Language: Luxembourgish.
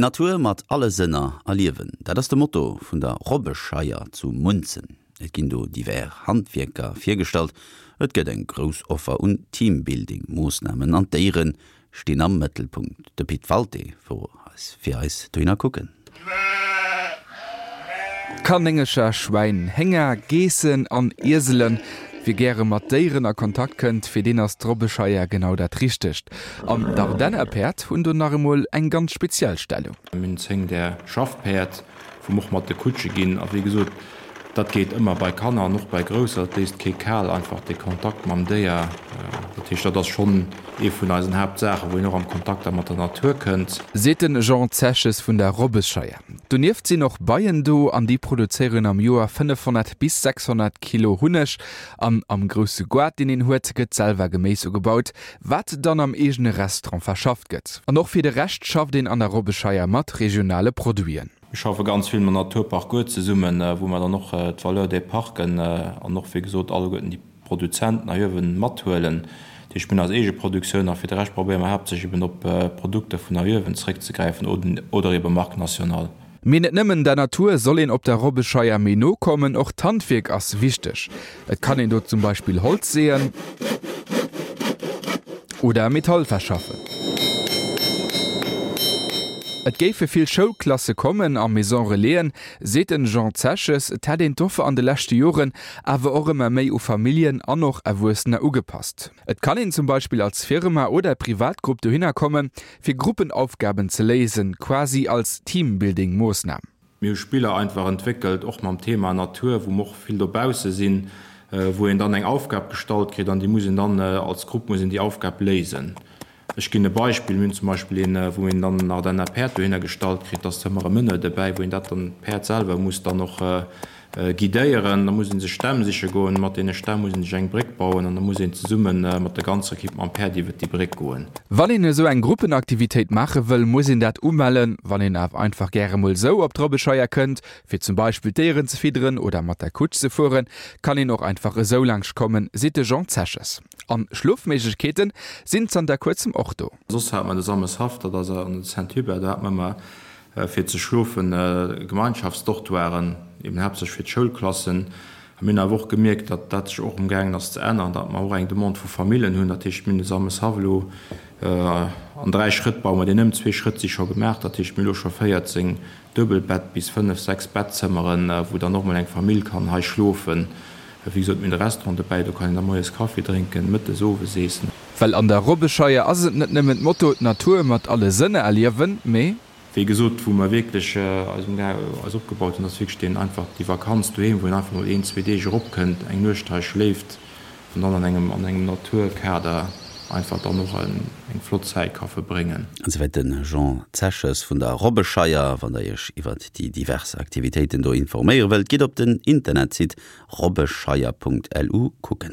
D'Natur mat alle Sënner erliewen, dat ass de Motto vun der Robbescheier zu Munzen. Et ginn do divers Handwierker virgestallt, et gëtt eng grouss Offer un Teambuilding-Moossnamen an d'Déiere stinn am Mëttelpunkt. De Pit Walté wor eis fir eis dohinner kucken. Kanéngercher, Schwäin, Hénger, Geessen an Ieselen, Wie gäre mat Déieren a Kontakt kënnt, fir deen ass d'Robbescheier genau dat Richtegt. An d'Ardennerpäerd hunn do nach emol eng ganz speziell Stellung. Mir hunn 10 där Schaffpäerd, wou mer och mat de Kutsche ginn. A wéi gesot, dat geet ëmmer bei Kanner an och bei Grousser. Et léisst kee kal, einfach dee Kontakt mam Déier. Dat heescht, dat ass schonn ee vun eisen Haaptsaachen, wou een och am Kontakt da mat der Natur kënnt. Seet de Jean Zeches vun der Robbescheier. Donieft sinn och Beien do an déi produzéieren am Joer 500 bis 600 Kilo Hunneg. An am grousse Goart, deen een huet, gëtt selwer Geméis ugebaut, wat dann am eegene Restaurant verschafft gëtt. An och fir de Rescht schafft een an der Robbescheier mat regionale Produiten. Mir schaffe ganz vill mam Naturpark Goart zesummen, wou mer dann och d'Valeur des Parken an och, wéi gesot, alleguerten déi Produzenten hei uewen mathuelen. Dat heescht, mir hunn eis eege Produktioun a fir de Rescht probéiere mer haaptsächlech eben op Produkter vun hei uewen zeréckzegräifen oder ebe Marque nationale. Mee net nëmmen der Natur soll een op der Robbescheier méi no kommen, och d'Handwierk ass wichteg. Et kann een do zum Beispill Holz seeën oder Metall verschaffen. Et géife vill Schoulklasse kommen a Maison Relaisen, seet den Jean Zeches. Et hätt een d'Offer an de leschte Joren awer och ëmmer méi u Familljen an och Erwuessener ugepasst. Et kann een zum Beispill als Firma oder Privatgrupp dohinner kommen, fir Gruppenaufgaben ze léisen, quasi als Teambuilding-Moossnam. Mir hu Spiller einfach entwéckelt, och mam Thema Natur, wou mer och vill dobausse sinn, wou een dann eng Aufgab gestallt kritt an déi muss een dann als Grupp muss een déi Aufgab léisen. Ech ginn e Beispill, Mir hunn zum Beispill een, wou een dann en Ardenner Päerd dohinner gestallt kritt, da ass ëmmer e Meneur dobäi, wou een dat dann, d'Päerd selwer muss dann och guidéieren. Da muss ee sech Stämm siche goen, mat deene Stämm muss ee sech eng Bréck bauen an da muss een zesumme mat der ganzer Ekipp mam Päerd iwwert déi Bréck goen. Wann een esou eng Gruppenaktivitéit maache wëll, muss een dat umellen. Wann een awer einfach gäre mol esou op d'Robbescheier kënnt, fir zum Beispill d'Déieren ze fidderen oder mat der Kutsch ze fueren, kann een och einfach esou laanscht kommen, seet de Jean Zeches. An Schlofméiglechkeeten sinn zanter kuerzem och do. Soss hat mer de Sameshaff, dat ass an de Saint-Hubert, do hat mer ëmmer fir ze schlofen Gemeinschaftsdortoiren, eben haaptsächlech fir d'Schoulklassen. A mir hunn awer och gemierkt, datt dat sech och emgaangen ass ze änneren, datt mer och eng Demande vu Famillen hunn. Dat heescht, mir hunn de Sameshaff elo an 3 Schrëtt baue mer deen ëm. Zwee Schrëtt si scho gemaach, dat heescht, mir hu elo scho 14 Duebelbett bis 5, 6 Bettzëmmeren, wou dann och mol eng Famill kann hei schlofen. Wéi gesot, mir hunn de Restaurant dobäi, do kann een da moies Kaffi drénken, mëttes, owes eessen. Well an der Robbescheier ass et net nëmmen d'Motto d'Natur mat alle Sënner erliewen, mee. Wéi gesot, wou mer wierklech eis eis opgebaut hunn, ass wierklech deen einfach déi Vakanz doheem, wou een einfach mol een, zwee Deeg eropkënnt, eng Nuecht hei schléift an dann an engem an engem Naturkader einfach dann och eng flott Zäit ka verbréngen. Esouwäit de Jean Zeches vun der Robbescheier. Wann der iech iwwert déi divers Aktivitéiten do informéiere wëllt, gitt op den Internetsite robbescheier.lu kucken.